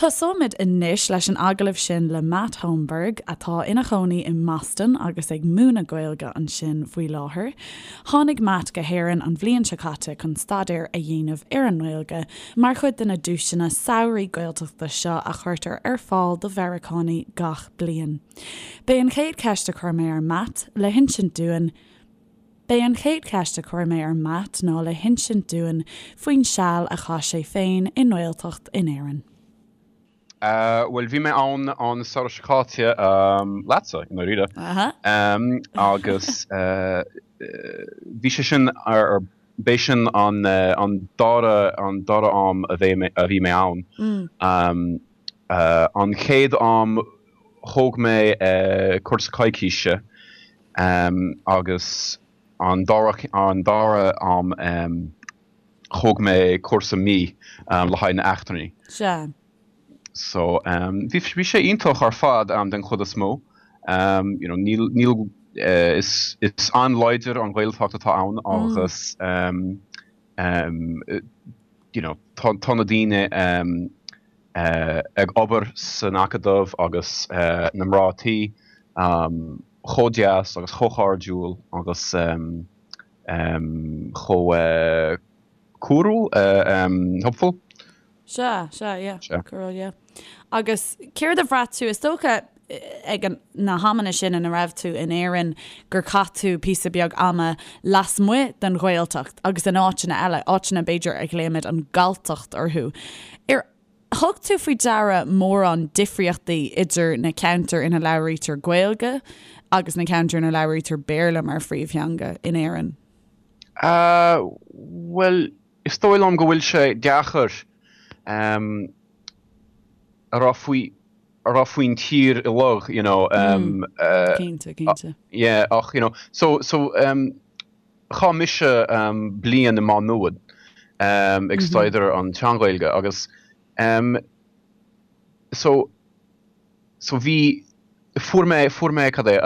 Tosóimid anois leis an agallamh sin le Matt Holmberg, atá ina chónaí i mBoston agus ag múineadh Gaeilge ansin faoi láthair. Tháinig Matt go hÉirinn an bhliain seo caite chun staidéar a dhéanamh ar an nGaeilge mar chuid de na duaiseanna samhraidh Gaeltachta seo a chuirtear ar fáil do Mheiriceánaigh gach bliain. B'é an chéad cheist a chuir mé ar Matt le hinsint dúinn B'é an chéad cheist a chuir mé ar Matt ná le hinsint dúinn faoin seal a chaith sé féin i nGaeltacht in Éirinn. Bhuel, bhí mé ann an samhradh seo caite leatsa, i ndáiríre. Agus bhí sé sin ar, b'é sin an dara, an dara am a bhí mé ann. An chéad am thóg mé cúrsa coicíse Agus an dara an dara am thóg mé cúrsa mí le haghaidh na eachtrannaigh. Sea. So bhí bhí sé iontach ar fad den chuid is mó. You know níl níl is is an-láidir an Ghaeltacht atá ann agus you know tá tá na daoine ag obair san Acadamh agus na mná tí chomh deas agus chomh cairdiúil agus chomh córúil, helpful. Sea, sea, yeah, córúil, yeah. Agus céard a bhraith tú, is dócha ag na hamanna sin ina raibh tú in Éirinn gur chaith tú píosa beag ama lasmuigh den Ghaeltacht agus in áiteanna eile, áiteanna b'fhéidir a ghlaoimid an Ghalltacht orthu. Ar thug tú faoi deara mórán difríochtaí idir na ceantair ina labhraítear Gaeilge agus na ceantair ina labhraítear Béarla mar phríomhtheanga in Éirinn? Bhuel, is dóigh liom go bhfuil sé deacair a rá faoi a rá faoin tír uilig, you know. Cinnte, cinnte. Yeah, ach, you know, so, so, chaith mise bliain i Má Nuad ag staidéar an tSean-Ghaeilge agus so, so bhí, fuair mé, fuair mé, cad é,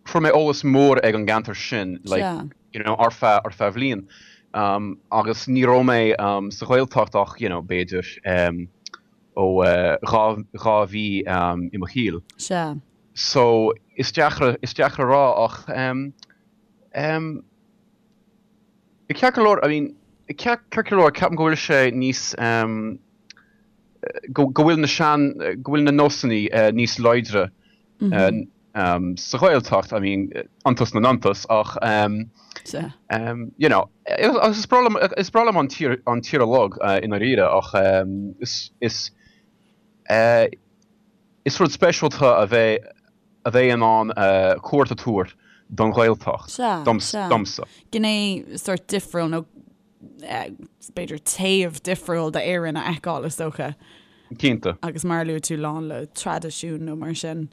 fuair mé eolas mór ag an gceantar sin, like, you know, ar feadh, ar feadh bhliain. Agus ní raibh mé sa Ghaeltacht ach, you know, b'fhéidir ó 2 mhí i mo shaol. Sea. So, is deacair, is deacair a rá ach ceart go leor, I mean, ceart go leor, ceapaim go bhfuil sé níos, go bhfuil na sean, go bhfuil na nósanna níos láidre sa Ghaeltacht, I mean, iontas na n-iontas, ach you know, agus is breá liom, is breá liom an tír, an tír uilig i ndáiríre ach is, is, is rud speisialta a bheith, a bheith in ann cuairt a tabhairt don Ghaeltacht, domsa. Gné sórt difriúil nó b'fhéidir taobh difriúil d'Éirinn a fheiceáil, is dócha. Cinnte. Agus mar a luaigh tú, lán le traidisiún nó mar sin.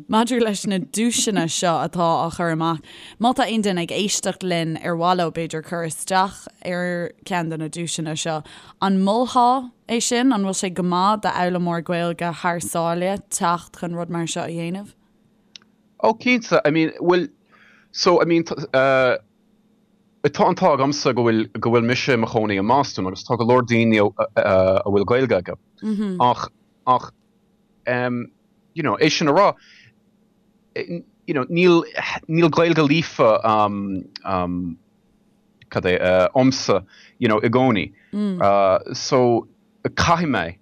Maidir leis na duaiseanna seo atá á chur amach, má tá aon duine ag éisteacht linn ar mhaith leo b'fhéidir cur isteach ar cheann de na duaiseanna seo, an molfá é sin? An bhfuil sé go maith d'fhoghlaimeoir Gaeilge thar sáile teacht chun rud mar seo a dhéanamh? Oh cinnte, I mean, bhuel, so, I mean, uh, Tá an t-ádh agamsa go bhfuil go bhfuil mise i mo chónaí i mBoston agus tá go leor daoine a bhfuil Gaeilge acu. Ach ach you know é sin a rá you know níl níl Gaeilge líofa cad é a'msa you know i gcónaí. So caithfidh mé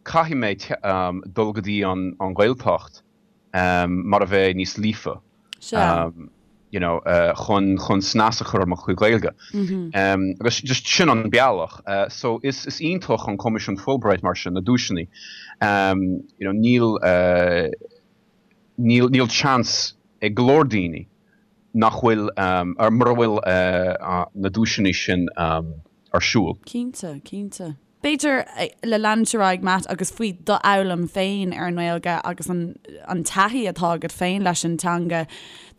caithfidh mé dul go dtí an an Ghaeltacht mar a bheith níos líofa you know chun chun snas a chur ar mo chuid Gaeilge. Agus just sin an bealach. So is is iontach an Coimisiún Fulbright mar sin, na duaiseanna. You know níl níl níl chance ag go leor daoine nach bhfuil ar mura bhfuil na duaiseanna sin ar siúl. Cinnte, cinnte. B'fhéidir, le leanúint ar aghaidh, Matt, agus faoi d'fhoghlaim féin ar an nGaeilge agus an an taithí atá agat féin leis an teanga.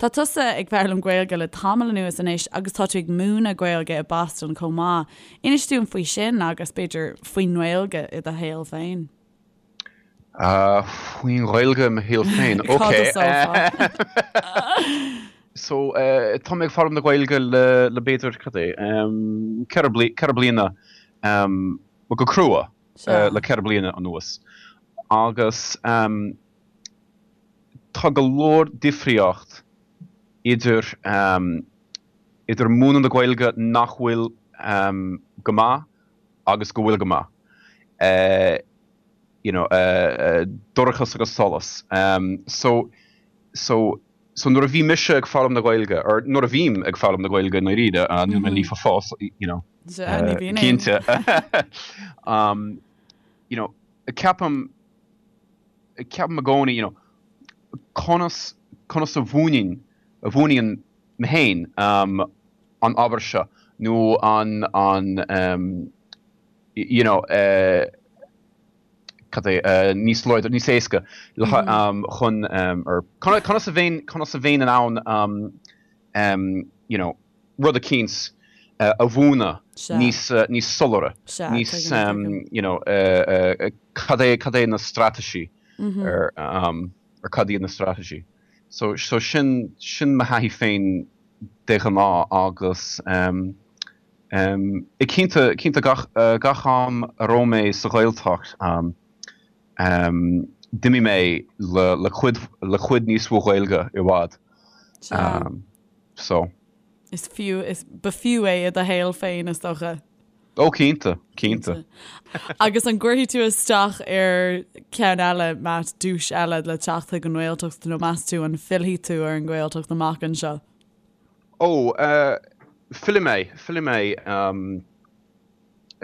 Tá tusa ag foghlaim Gaeilge le tamall anuas anois agus tá tú ag múineadh Gaeilge i Boston chomh maith. Inis dúinn faoi sin agus, b'fhéidir, faoin nGaeilge i do shaol féin. Faoin Ghaeilge i mo shaol féin? Ok. Cad a sófá? So, tá mé ag foghlaim na Gaeilge le, le b'fhéidir, cad é, 4 bliana go crua. le 4 bliana anuas agus tá go leor difríocht idir idir múineadh na Gaeilge nach bhfuil go maith agus go bhfuil go maith. You know, dorchas agus solas. So, so, so nuair a bhí mise ag foghlaim na Gaeilge, or nuair a bhím ag foghlaim na Gaeilge i ndáiríre, níl mé líofa fós, you know, cinnte. You know, ceapaim, ceapaim i gcónaí, you know, conas, conas a mhúinfinn, a mhúinfinn mé féin an obair seo nó an, an, you know, cad é, níos láidre, níos éasca le chun, or conas a bheinn, conas a bheinn in ann, you know, rud eicínt a mhúineadh níos, níos soiléire, níos, you know, cad é, cad é na straitéisí ar, ar cad iad na straitéisí. So, so sin, sin mo thaithí féin de ghnáth agus eh cinnte, cinnte gach, gach am a raibh mé sa Ghaeltacht d'imigh mé le, le cuid, le cuid níos mó Gaeilge i bhfad. So. Is fiú, is, ba fiú é i do shaol féin is dócha. Ó cinnte, cinnte. Agus an gcuirfidh tú isteach ar ceann eile, Matt, duais eile le teacht chuig an nGaeltacht nó meas tú an bhfillfidh tú ar an nGaeltacht amach anseo? Ó, fillfidh mé, fillfidh mé,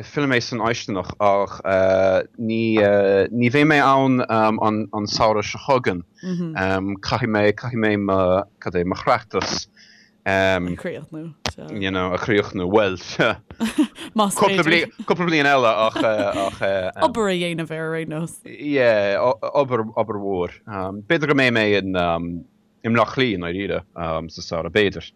fillfidh mé san fháistineach ach ní, ní bheidh mé ann an samhradh seo chugainn. Caithfidh mé, caithfidh mé mo, cad é, mo chleachtas A chríochnú. You know, a chríochnú, bhuel, Más cúpla bliain, cúpla bliain eile ach, ach. Obair a dhéanamh air ar aon nós. Yeah, obair, obair mhór. B'fhéidir go mbeidh mé in, i mBleá Cliath i ndáiríre sa samhradh, b'fhéidir.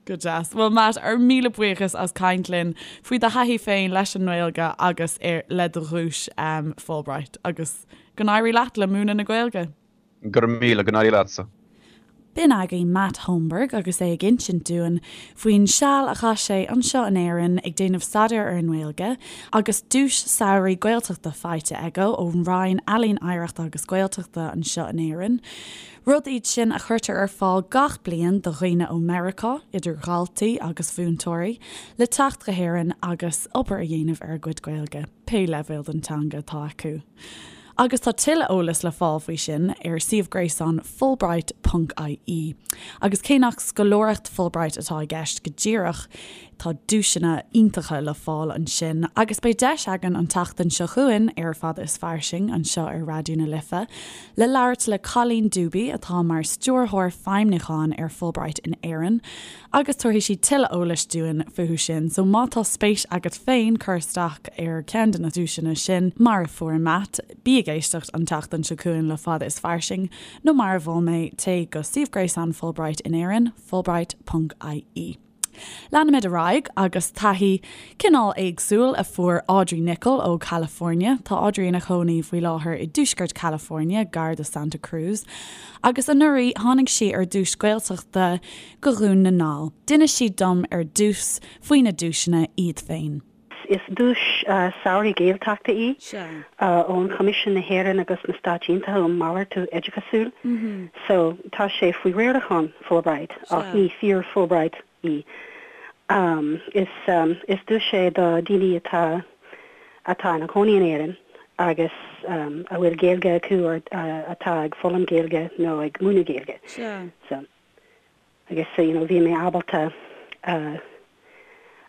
Go deas. Bhuel Matt, ár míle buíochas as caint linn faoi do thaithí féin leis an nGaeilge agus ar, le do dhuais Fulbright agus go n-éirí leat le múineadh na Gaeilge. Go raibh míle, go n-éirí leatsa. B'in againn Matt Holmberg agus é ag insint dúinn faoin seal a chaith sé anseo in Éirinn ag déanamh staidéir ar an nGaeilge agus duais samhraidh Gaeltachta faighte aige ón Roinn Ealaíon Oidhreachta agus Gaeltachta anseo in Éirinn. Rud iad sin a chuirtear ar fáil gach bliain do dhaoine ó Meiriceá, idir dhaltaí agus mhúinteoirí, le teacht go hÉirinn agus obair a dhéanamh ar a gcuid Gaeilge, pé leibhéal den teanga atá acu. Agus tá tuilleadh eolais le fáil faoi sin ar suíomh gréasáin Fulbright ponc ie. Agus cé nach scoláireacht Fulbright atá i gceist go díreach, tá duaiseanna iontacha le fáil ansin. Agus beidh deis againn an tseachtain seo chugainn ar Fada is Fairsing anseo ar Raidió na Life le labhairt le Colleen Dube atá mar Stiúrthóir Feidhmiúcháin ar Fulbright in Éirinn agus tabharfaidh sí tuilleadh eolais dúinn fúthu sin, so má tá spéis agat féin cur isteach ar cheann de na duaiseanna sin, mar a fuair Matt, bí ag éisteacht an tseachtain seo chugainn le Fada is Fairsing, nó mar a mhol mé, téigh go suíomh gréasáin Fulbright in Éirinn, fulbright ponc ie. Leanfaimid ar aghaidh agus taithí cineál éagsúil a fuair Audrey Nicholl ó California. Tá Audrey ina cónaí faoi láthair i dtuaisceart California, gar do Santa Cruz, agus anuraidh tháinig sí ar dhuais Gaeltachta go Dhún na nGall. D'inis sí dom ar dtús faoi na duaiseanna iad féin. Is duais samhraidh Gaeltachta í ón Choimisiún na hÉireann agus na Stáit Aontaithe um Malartú Oideachasúil. So tá sé faoi riarachán Fulbright ach ní fíor Fulbright í. Is is duais é do daoine atá atá ina gcónaí in Éirinn agus a bhfuil Gaeilge acu or atá ag foghlaim Gaeilge nó ag múineadh Gaeilge. So. Agus you know bhí mé ábalta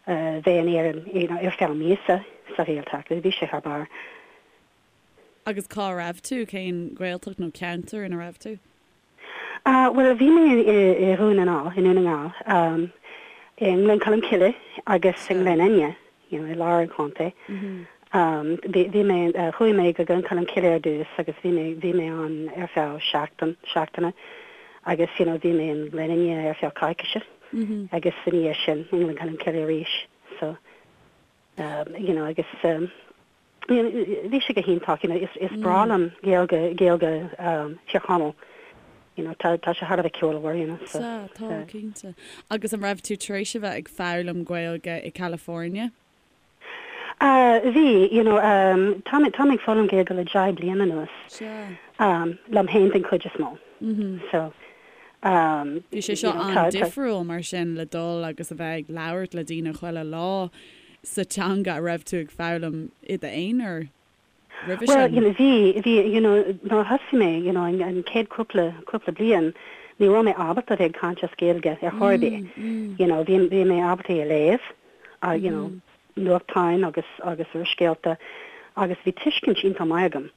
bheith in Éirinn you know ar feadh míosa sa Ghaeltacht, bhí sé thar barr. Agus cá raibh tú? Cén Ghaeltacht nó ceantar ina raibh tú? Bhuel bhí mé i Dhún na nGall, i nDún na nGall, i nGleann Cholm Cille agus i nGleann Fhinne. you know, i lár an chontae. Bhí, bhí mé, chuaigh mé go Gleann Cholm Cille ar dtús agus bhí mé, bhí mé ann ar feadh seachtain, seachtaine agus, you know, bhí mé in Gleann Fhinne ar feadh coicíse agus ina dhiaidh sin i nGleann Cholm Cille arís. So, you know, agus you know, bhí sé go hiontach, you know, is, is breá liom Gaeilge, Gaeilge Thír Chonaill, you know, tá, tá sé thar a bheith ceolmhar, you know, so. Sea, tá, cinnte. Agus an raibh tú tar éis a bheith ag foghlaim Gaeilge i California? Bhí, you know, tá mé, tá mé ag foghlaim Gaeilge le 10 bliana anuas. Sea. Liom féin den chuid is mó. So, Bhí sé seo an-difriúil mar sin le dul agus a bheith ag labhairt le daoine chuile lá sa teanga a raibh tú ag foghlaim i d'aonar roimhe Well, sin. you know, bhí, bhí, you know, nuair a thosaigh mé, you know, an, an chéad cúpla, cúpla bliain, ní raibh mé ábalta a bheith ag caint as Gaeilge ar chor ar bith. You know, bhí, bhí mé ábalta é a léamh, uh, you know, nuachtáin agus, agus úrscéalta agus bhí tuiscint iontach maith agam.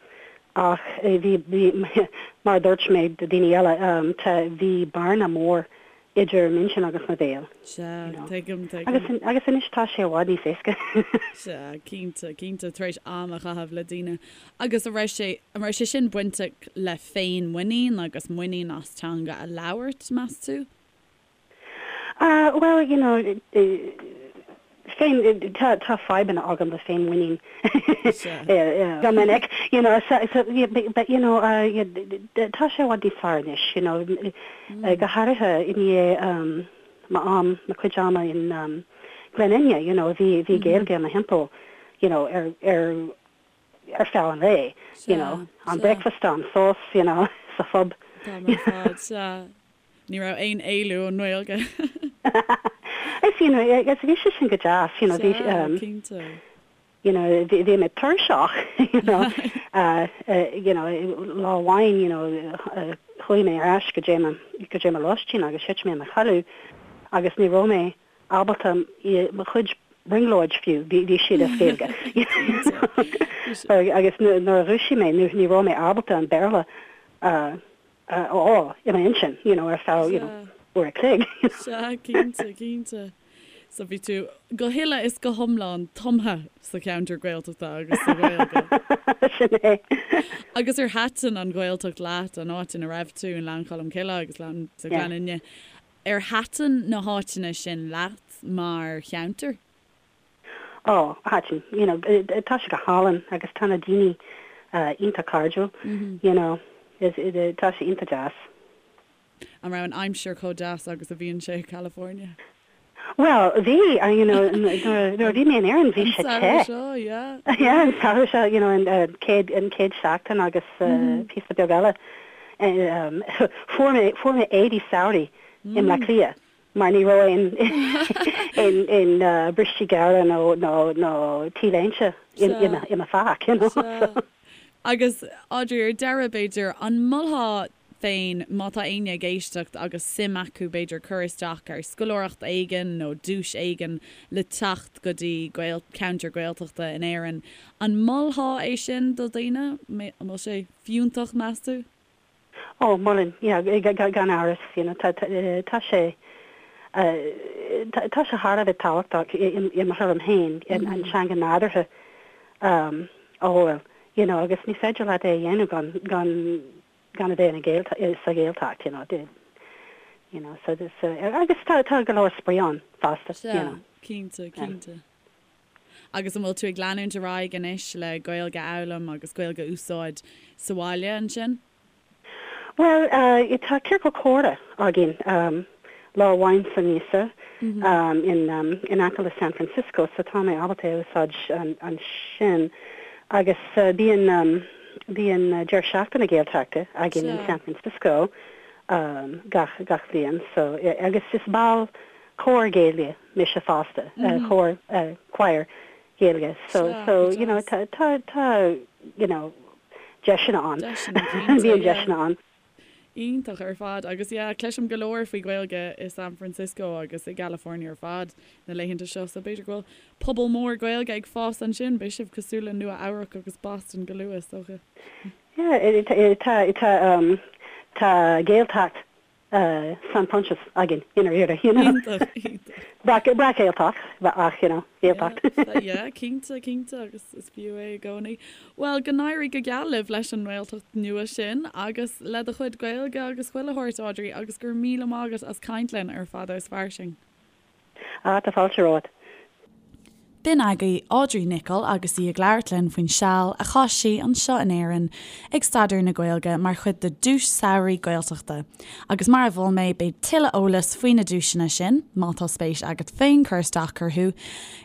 Ach eh, bhí, bhí, mar a dúirt mé do daoine eile, um, tá, bhí bearna mór idir m'intinn agus mo bhéal. Sea, tuigim, tuigim. Agus, agus anois tá sé i bhfad níos éasca. Sea, cinnte, cinnte, tar éis am a chaitheamh le daoine. Agus an raibh sé, an raibh sé sin bainteach le féinmhuinín agus muinín as teanga a labhairt, meas tú? Ah, well, you know, féin, tá, tá fadhbanna agam le féinmhuinín go minic, you know, so, so, but, you know, tá sé i bhfad níos fearr anois, you know, go háirithe i ndiaidh m'am, mo chuid ama in Glen Fhinne, you know, bhí, bhí Gaeilge i mo thimpeall, you know, ar, ar, ar feadh an lae, you know, am bricfeasta, am sos, you know, sa phub. An t-am ar fad, sea. Ní raibh aon éalú ón nGaeilge. Is, you know, agus bhí sé sin go deas, you know, bhí, Sea, cinnte. you know, bhí, bhí mé tuirseach, you know, uh, uh, you know, lá amháin, you know, uh, chuaigh mé ar ais go dtí mo, go dtí mo lóistín agus thit mé i mo chodladh agus ní raibh mé ábalta mo chuid brionglóid fiú, bhí, bhí siad as Gaeilge. Agus nuair a dhúisigh mé, ní, ní raibh mé ábalta an Béarla uh, a fháil i m'intinn, you know, ar feadh, you know, uair a chloig. Sea, cinnte, cinnte. So bhí tú go huile is go hiomlán tumtha sa cheantar Gaeltachta agus sa Ghaeilge. Sin é. Agus ar thaitin an Ghaeltacht leat, an áit ina raibh tú, i nGleann Cholm Cille agus sa Ghleann Fhinne, ar thaitin na háiteanna sin leat mar cheantar? Ó, thaitin, you know, tá sé go hálainn agus tá na daoine iontach cairdiúil, you know, tá sé iontach deas. An raibh an aimsir chomh deas agus a bhíonn sé i California? Bhuel, bhí, you know, nuair a bhí mé in Éirinn bhí sé te. An samhradh seo, yeah. Yeah, an samhradh seo, you know, an chéad, an chéad seachtain agus píosa beag eile. Fuair mé, fuair mé éadaí samhraidh i mBleá Cliath. mar ní raibh aon aon bristí gearra nó nó nó T-léinte i mo phac, you know. Sea. Agus Audrey, ar deireadh, b'fhéidir, an molfá féin, má tá éinne ag éisteacht agus suim acu, b'fhéidir, cur isteach ar scoláireacht éigin nó duais éigin le teacht go dtí ceantar Gaeltachta in Éirinn, an molfá é sin do dhaoine? An bhfuil sé fiúntach, meas tú? Ó, molaim, yeah, gan amhras, you know, tá, tá sé, tá sé thar a bheith tábhachtach i mo thuairim féin, an teanga nádúrtha a fháil, you know, agus ní féidir leat é a dhéanamh gan, gan, gan a bheith ina Gael, sa Ghaeltacht, you know, you know, so, so, agus tá, tá go leor spraoi ann fosta, you know. Sea, cinnte, cinnte. Agus an bhfuil tú ag leanúint ar aghaidh anois le Gaeilge a fhoghlaim agus Gaeilge a úsáid sa bhaile ansin? Bhuel, tá ciorcal comhrá againn lá amháin sa míosa in aice le San Francisco so tá mé ábalta é a úsáid ansin. Agus bíonn bíonn deireadh seachtaine Gaeltachta againn in San Francisco gach gach bhliain so agus is ball cór Gaeilge mise fosta, cór, choir Gaeilge so, so, you know, tá, tá, tá, you know, deiseanna ann. Bíonn deiseanna ann. Iontach ar fad agus yeah, cloisim go leor faoi Ghaeilge i San Francisco agus i gCalifornia ar fad na laethanta seo so b'fhéidir go bhfuil pobal mór Gaeilge ag fás ansin, beidh sibh cosúil le Nua Eabhrac agus Boston go luath is dócha. Yeah, tá, tá, tá Gaeltacht San Proinsias againn i ndáiríre, you know. Iontach, iontach. Breac-Ghaeltacht, ach, you know, Gaeltacht. Yeah, cinnte, cinnte, agus is fiú é i gcónaí. Bhuel, go n-éirí go geal libh leis an nGaeltacht nua sin agus le do chuid Gaeilge agus chuile shórt, Audrey, agus go raibh míle maith agat as caint linn ar Fada is Fairsing. Ah, tá fáilte romhat. B'in agaibh Audrey Nicholl agus í ag labhairt linn faoin seal a chaith sí anseo in Éirinn ag staidéar na Gaeilge mar chuid de Duais Samhraidh Gaeltachta. Agus mar a mhol mé, beidh tuilleadh eolais faoi na duaiseanna sin, má tá spéis agat féin cur isteach orthu,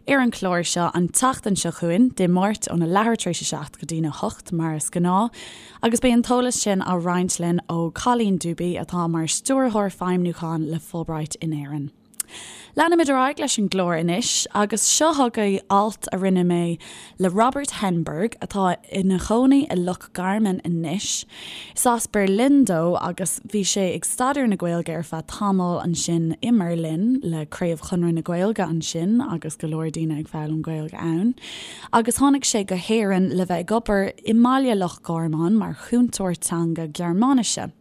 ar an chlár seo an tseachtain seo chugainn, Dé Máirt óna leathuair tar éis a 7 go dtína 8 mar is gnáth. Agus beidh an t-eolas sin á roinnt linn ó Colleen Dube atá mar Stiúrthóir Feidhmiúcháin le Fulbright in Éirinn. Leanfaimid ar aghaidh leis an gclár anois agus seo chugaibh alt a rinne mé le Robert Henberg atá ina chónaí i Loch Garman anois. Is as Berlin dó agus bhí sé ag staidéar na Gaeilge ar feadh tamaill ansin i mBerlin le Craobh Chonradh na Gaeilge ansin agus go leor daoine ag foghlaim Gaeilge ann. Agus tháinig sé go hÉirinn le bheith ag obair i mbaile Loch Garman mar chúntóir teanga Gearmáinise.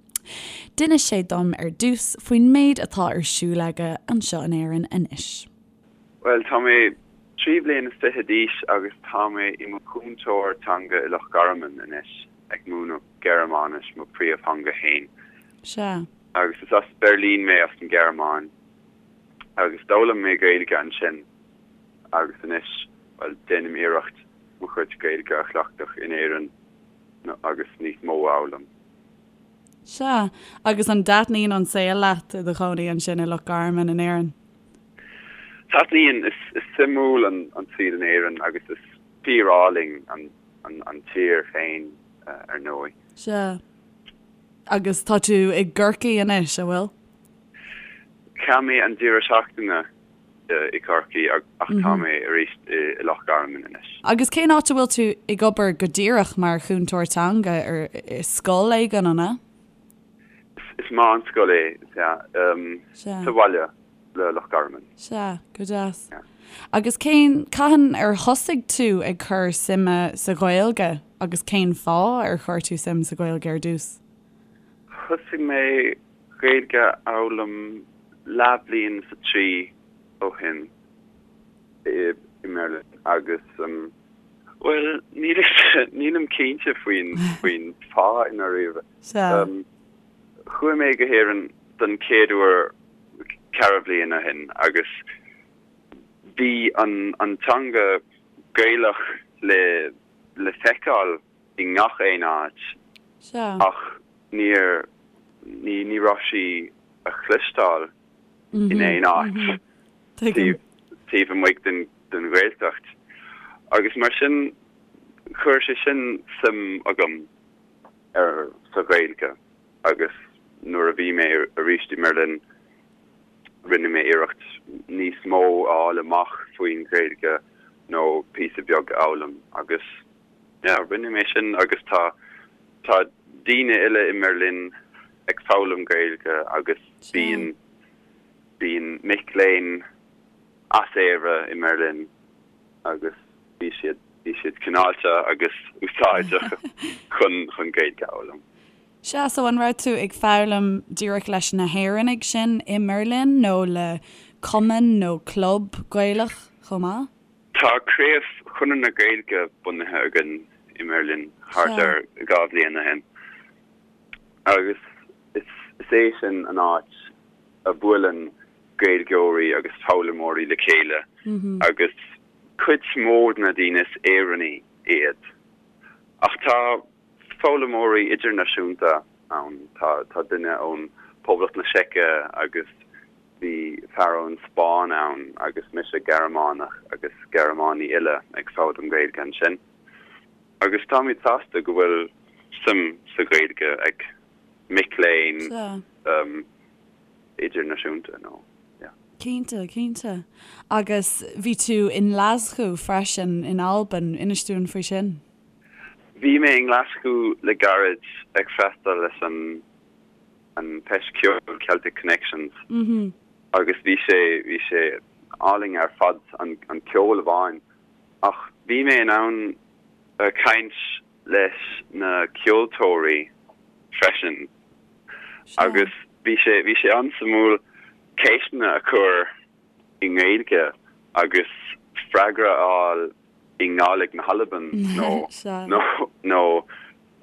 D'inis sé dom ar dtús faoin méid atá ar siúl aige anseo in Éirinn anois. Bhuel, tá mé 23 bliana d'aois agus tá mé i mo chúntóir teanga i Loch Garman anois, ag múineadh Gearmáinis, mo príomhtheanga fhéin. Sea. Agus is as Beirlín mé, as an Ghearmáin, agus d'fhoghlaim mé Gaeilge ansin agus anois, bhuel, déanaim iarracht mo chuid Gaeilge a chleachtadh in Éirinn agus níos mó a fhoghlaim. Sea. Agus an dtaitníonn an saol leat i do chónaí ansin i Loch Garman in Éirinn? Taitníonn. Is suimiúil an saol in Éirinn agus is fíor-álainn an tír féin, ar ndóigh. Sea. Agus tá tú i gCorcaigh anois, an bhfuil? Chaith mé an deireadh seachtaine i gCorcaigh ach tá mé arís i Loch Garman anois. Agus cén áit a bhfuil tú ag obair go díreach mar chúntóir teanga? Ar i scoil éigin, an ea? Is meánscoil é, sea. Sa bhaile le Loch Garman. Sea, go deas. Agus cén, cathain ar thosaigh tú ag cur suime sa Ghaeilge agus cén fáth ar chuir tú suim sa Ghaeilge ar dtús? Thosaigh mé Gaeilge a fhoghlaim leathbhliain is a trí ó shin i mBeirlin agus, bhuel, nílim cinnte faoin faoin fáth i ndáiríre. Chuaigh mé go hÉirinn don chéad uair ceithre bhliain ó shin agus bhí an an teanga Gaelach le le feiceáil i ngach aon áit ach níor, ní, ní raibh sí a chloisteáil in aon áit taobh, taobh amuigh den, den Ghaeltacht. Agus mar sin, chuir sé sin suim agam ar, sa Ghaeilge agus nuair a bhí mé arís i mBerlin, rinne mé iarracht níos mó a fháil amach faoin Ghaeilge nó píosa beag a fhoghlaim agus Yeah, rinne mé sin agus tá tá daoine eile i mBerlin ag foghlaim Gaeilge agus bíonn bíonn mic léinn as Éire i mBerlin agus bhí siad bhí siad cineálta agus úsáideach chun chun Gaeilge a fhoghlaim. Sea, so an raibh tú ag foghlaim díreach leis na hÉireannaigh sin i mBerlin nó le cumann nó club Gaelach chomh maith? Tá Craobh Chonradh na Gaeilge bunaithe againn i mBerlin thart ar 2 bhliain ó shin agus is é sin an áit a bhuaileann Gaeilgeoirí agus foghlaimeoirí le chéile agus cuid mhór de na daoine is Éireannaigh iad. Ach tá foghlaimeoirí idirnáisiúnta ann, tá duine ón Poblacht na Seice agus Bhí fear ón Spáinn ann agus mise Gearmánach agus Gearmánaigh eile ag foghlaim Gaeilge ansin. Agus táimid sásta go bhfuil suim sa Ghaeilge ag mic léinn idirnáisiúnta nó yeah. Cinnte, cinnte. Agus bhí tú i nGlaschú freisin in Albain, inis dúinn faoi sin. Bhí mé i nGlaschú le gairid ag freastal leis an an Feis Ceoil Celtic Connections agus bhí sé bhí sé álainn ar fad an an ceol amháin ach bhí mé in ann caint leis na ceoltóirí freisin agus bhí sé bhí sé an-suimiúil ceisteanna a chur i nGaeilge agus freagra a fháil i nGàidhlig na hAlban nó nó nó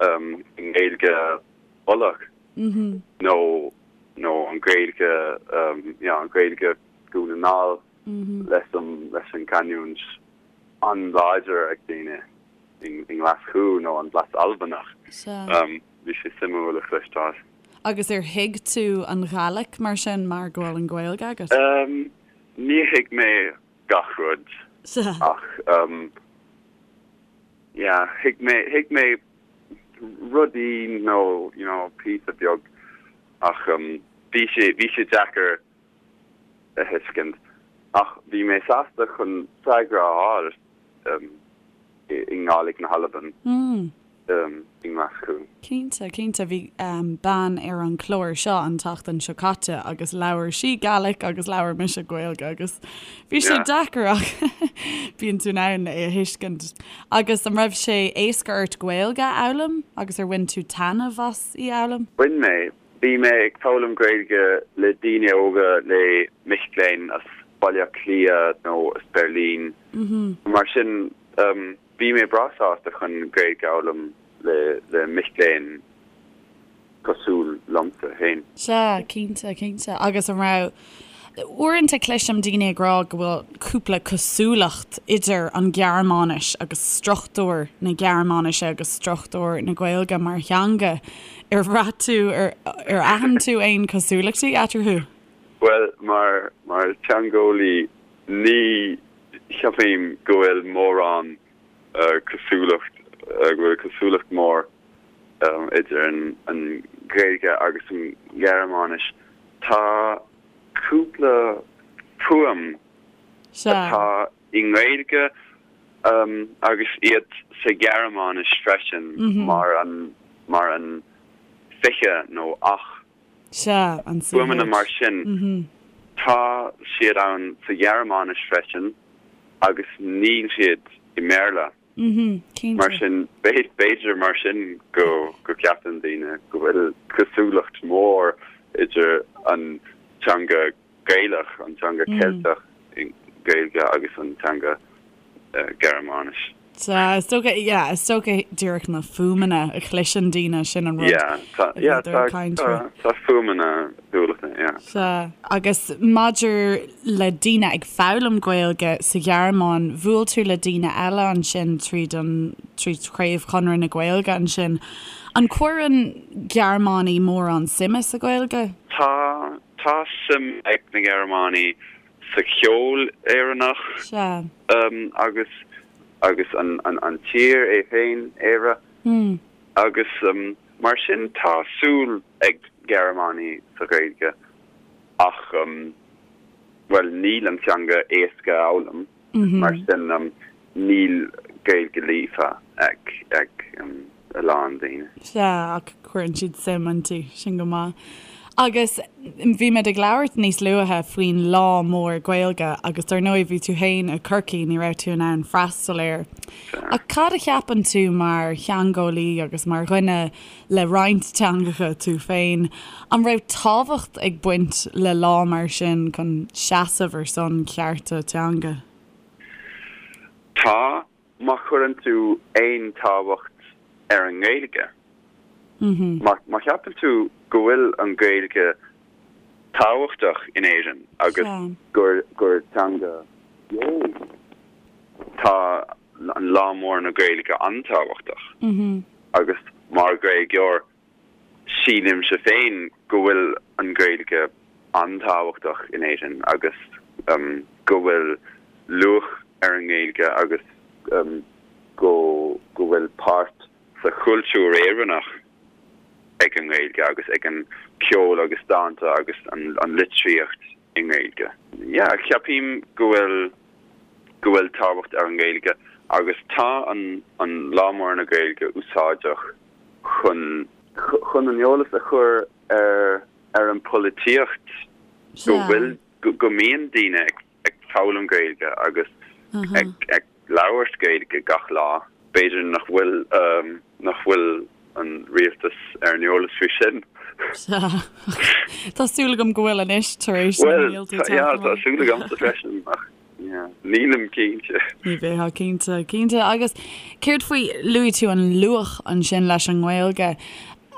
i nGaeilge Uladh nó nó an Ghaeilge yeah an Ghaeilge Dhún na nGall leis an leis an canúint. an-láidir ag daoine i nGlaschú nó an blas Albanach. Bhí sé suimiúil a chloisteáil. Agus ar thuig tú an Ghàidhlig mar sin mar go bhfuil an Ghaeilge agat? Ní thuig mé gach rud ach yeah thuig mé thuig mé rudaí nó you know píosa beag ach bhí sé bhí sé deacair a thuiscint ach bhí mé sásta chun freagra a fháil i nGàidhlig na hAlban i nGlaschú. Cinnte, cinnte. Bhí bean ar an chlár seo an tseachtain seo caite agus labhair sí Gaelic agus labhair mise Gaeilge agus bhí sé deacair ach bíonn tú in ann é a thuiscint. Agus an raibh sé éasca ort Gaeilge a fhoghlaim agus ar bhain tú taitneamh as í a fhoghlaim? Bhain mé. Bhí mé ag foghlaim Gaeilge le daoine óga, le mic léinn as Baile Átha Cliath nó as Beirlín. Mar sin, bhí mé breá sásta chun Gaeilge a fhoghlaim le mic léinn cosúil liomsa féin. Sea, cinnte, cinnte. Agus an raibh, uaireanta cloisim daoine ag rá go bhfuil cúpla cosúlacht idir an Ghearmáinis agus struchtúr na Gearmáinise agus struchtúr na Gaeilge mar theanga. Ar bhraith tú, ar ar aithin tú aon cosúlachtaí eatarthu? Bhuel, mar mar teangeolaí ní cheapaim go bhfuil mórán cosúlacht, go bhfuil cosúlacht mór idir an Ghaeilge agus an Ghearmáinis. Tá cúpla fuaim atá i nGaeilge agus iad sa Ghearmáinis freisin mar an mar an fiche nó ach. Fuaimeanna mar sin, tá siad ann sa Ghearmáinis freisin agus níl siad i mBéarla. Mar sin, b'fhéidir mar sin go gceapann daoine go bhfuil cosúlacht mhór idir an teanga Gaelach, an teanga Ceilteach, Gaeilge agus an teanga Gearmáinis. Sea, is dócha, yeah, is dócha díreach na fuaimeanna a chloiseann daoine, sin an rud Yeah, tá, yeah, tá, tá, tá fuaimeanna cosúlachta, yeah. Sea, agus maidir le daoine ag foghlaim Gaeilge sa Ghearmáin, bhuail tú le daoine eile ansin tríd an, tríd Chraobh Chonradh na Gaeilge ansin. An cuireann Gearmánaigh mórán suime sa Ghaeilge? Tá, tá suim ag na Gearmánaigh sa cheol Éireannach Sea. agus, agus an, an, an tír é féin, Éire. Agus mar sin tá súil ag Gearmánaigh sa Ghaeilge ach, bhuel, níl an teanga éasca a fhoghlaim, mar sin níl Gaeilge líofa ag a lán daoine. Sea, ach cuireann siad suim inti, sin go maith. Agus bhí muid ag labhairt níos luaithe faoin Lá Mór Gaeilge agus dar ndóigh bhí tú féin i gCorcaigh, ní raibh tú in ann freastal air. Ach cad a cheapann tú mar theangeolaí agus mar dhuine le roinnt teangacha tú féin, an raibh tábhacht ag baint le lá mar sin chun seasamh ar son cearta teanga? Tá, má chuireann tú aon tábhacht ar an nGaeilge. Má cheapann tú go bhfuil an Ghaeilge tábhachtach in Éirinn agus gur gur teanga bheo í, tá an Lá Mór na Gaeilge an-tábhachtach. Agus mar Ghaeilgeoir, sílimse féin go bhfuil an Ghaeilge an-tábhachtach in Éirinn agus go bhfuil luach ar an nGaeilge agus go go bhfuil páirt sa chultúr Éireannach ag an nGaeilge agus ag an ceol agus dánta agus an litríocht i nGaeilge. Yeah, ceapaim go bhfuil go bhfuil tábhacht ar an nGaeilge agus tá an an Lá Mór na Gaeilge úsáideach chun chun an eolas a chur ar ar an polaitíocht go bhfuil go mbíonn daoine ag ag foghlaim Gaeilge agus ag ag labhairt Gaeilge gach lá. B'fhéidir nach bhfuil nach bhfuil an rialtas ar an eolas faoi sin. Sea. Tá súil agam go bhfuil anois tar éis na mílte Bhuel, yeah, tá súil agamsa freisin ach yeah, nílim cinnte. Ní bheifeá cinnte, cinnte. Agus céard faoi, luaigh tú an luach ansin leis an nGaeilge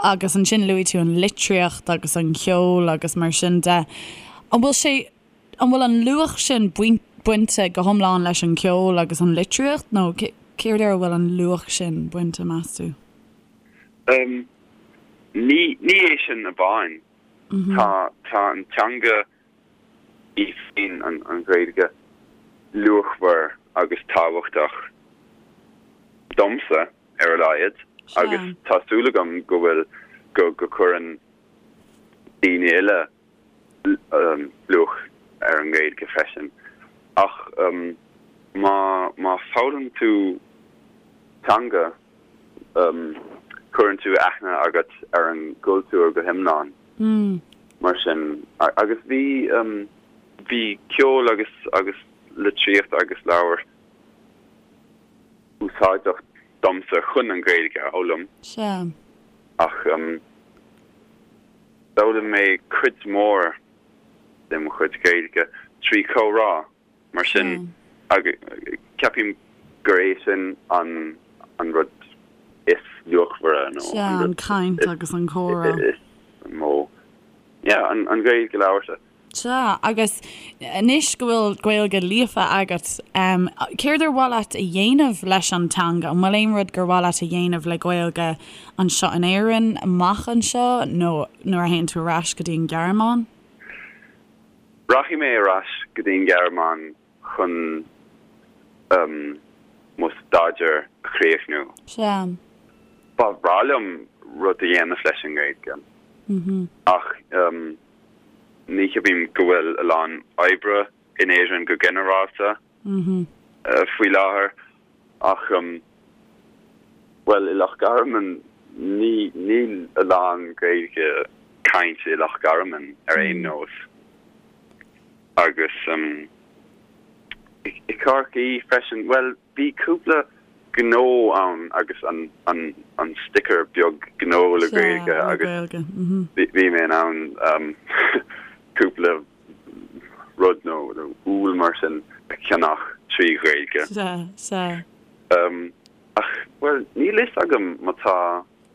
agus ansin luaigh tú an litríocht agus an ceol agus mar sin de. An bhfuil sé An bhfuil an luach sin baint, bainte go hiomlán leis an gceol agus an litríocht nó céard air a bhfuil an luach sin bainte, meas tú? Ní ní é sin amháin. Tá tá an teanga í féin, an an Ghaeilge, luachmhar agus tábhachtach domsa ar a laghad agus tá súil agam go bhfuil go go cuireann daoine eile luach ar an nGaeilge freisin. Ach má má foghlaim tú teanga cuireann tú aithne agat ar an gcultúr go hiomlán. Mar sin, agus bhí bhí ceol agus agus litríocht agus leabhair úsáideach domsa chun an Ghaeilge a fhoghlaim. Sea. Ach d'fhoghlaim mé cuid mhór de mo chuid Gaeilge trí chomhrá, mar sin ceapaim gur é sin an an rud is luachmhaire nó an rud an caint agus an comhrá is mó. Yeah, an Ghaeilge labhartha. Sea, agus anois go bhfuil Gaeilge líofa agat, céard ar mhaith leat a dhéanamh leis an teanga? An bhfuil aon rud gur mhaith leat a dhéanamh le Gaeilge anseo in Éirinn, amach anseo, nó nuair a théann tú ar ais go dtí an Ghearmáin? Rachaidh mé ar ais go dtí an Ghearmáin chun mo staidéar a chríochnú. Sea. Ba bhreá liom rud a dhéanamh leis an nGaeilge, ach Ní cheapaim go bhfuil a lán oibre in Éirinn go ginearálta faoi láthair ach, bhuel, i Loch Garman, ní, níl a lán Gaeilge cainte i Loch Garman ar aon nós. Agus i Corcaigh freisin, bhuel, Bhí cúpla gnó ann agus an an an sticker beag gnó le Gaeilge agus bhí mé in ann cúpla rud nó úll mar sin a cheannach trí Ghaeilge. Sea, sea. Ach, bhuel, níl fhios agam má tá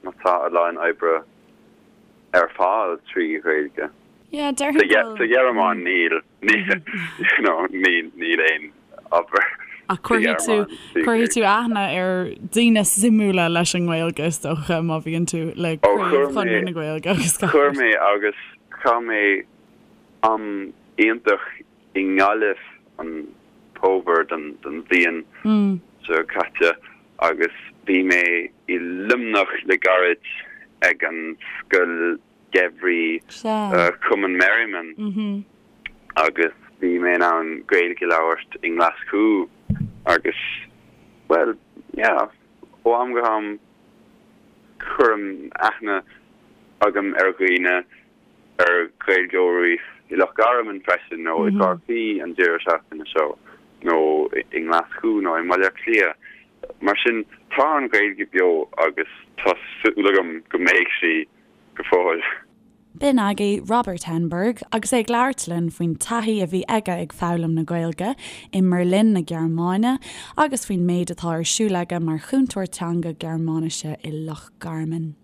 má tá a lán oibre ar fáil trí Ghaeilge. Yeah, déarfainn go. Sa Ghearmáin níl. You know, níl, níl aon obair Ach cuirfidh tú, cuirfidh tú aithne ar daoine suimiúla leis an nGaeilge is dócha má bhíonn tú le Craobh Chonradh na Gaeilge agus gach Chuir mé agus chaith mé am iontach i nGaillimh an fómhar den, den bhliain seo caite agus bhí mé i Luimneach le gairid ag an scoil Gheimhridh Chumann Merriman agus bhí mé in ann Gaeilge a labhairt i nGlaschú agus, bhuel, yeah, ó am go ham cuirim aithne agam ar dhaoine, ar Ghaeilgeoirí i Loch Garman freisin nó i gCorcaigh an deireadh seachtaine seo nó i nGlaschú nó i mBaile Átha Cliath. Mar sin, tá an Ghaeilge beo agus tá súil agam go mbeidh sí go fóill. B'in agaibh Robert Henberg agus é ag labhairt linn faoin taithí a bhí aige ag foghlaim na Gaeilge i mBerlin na Gearmáine agus faoin méid atá ar siúl aige mar chúntóir teanga Gearmáinise i Loch Garman.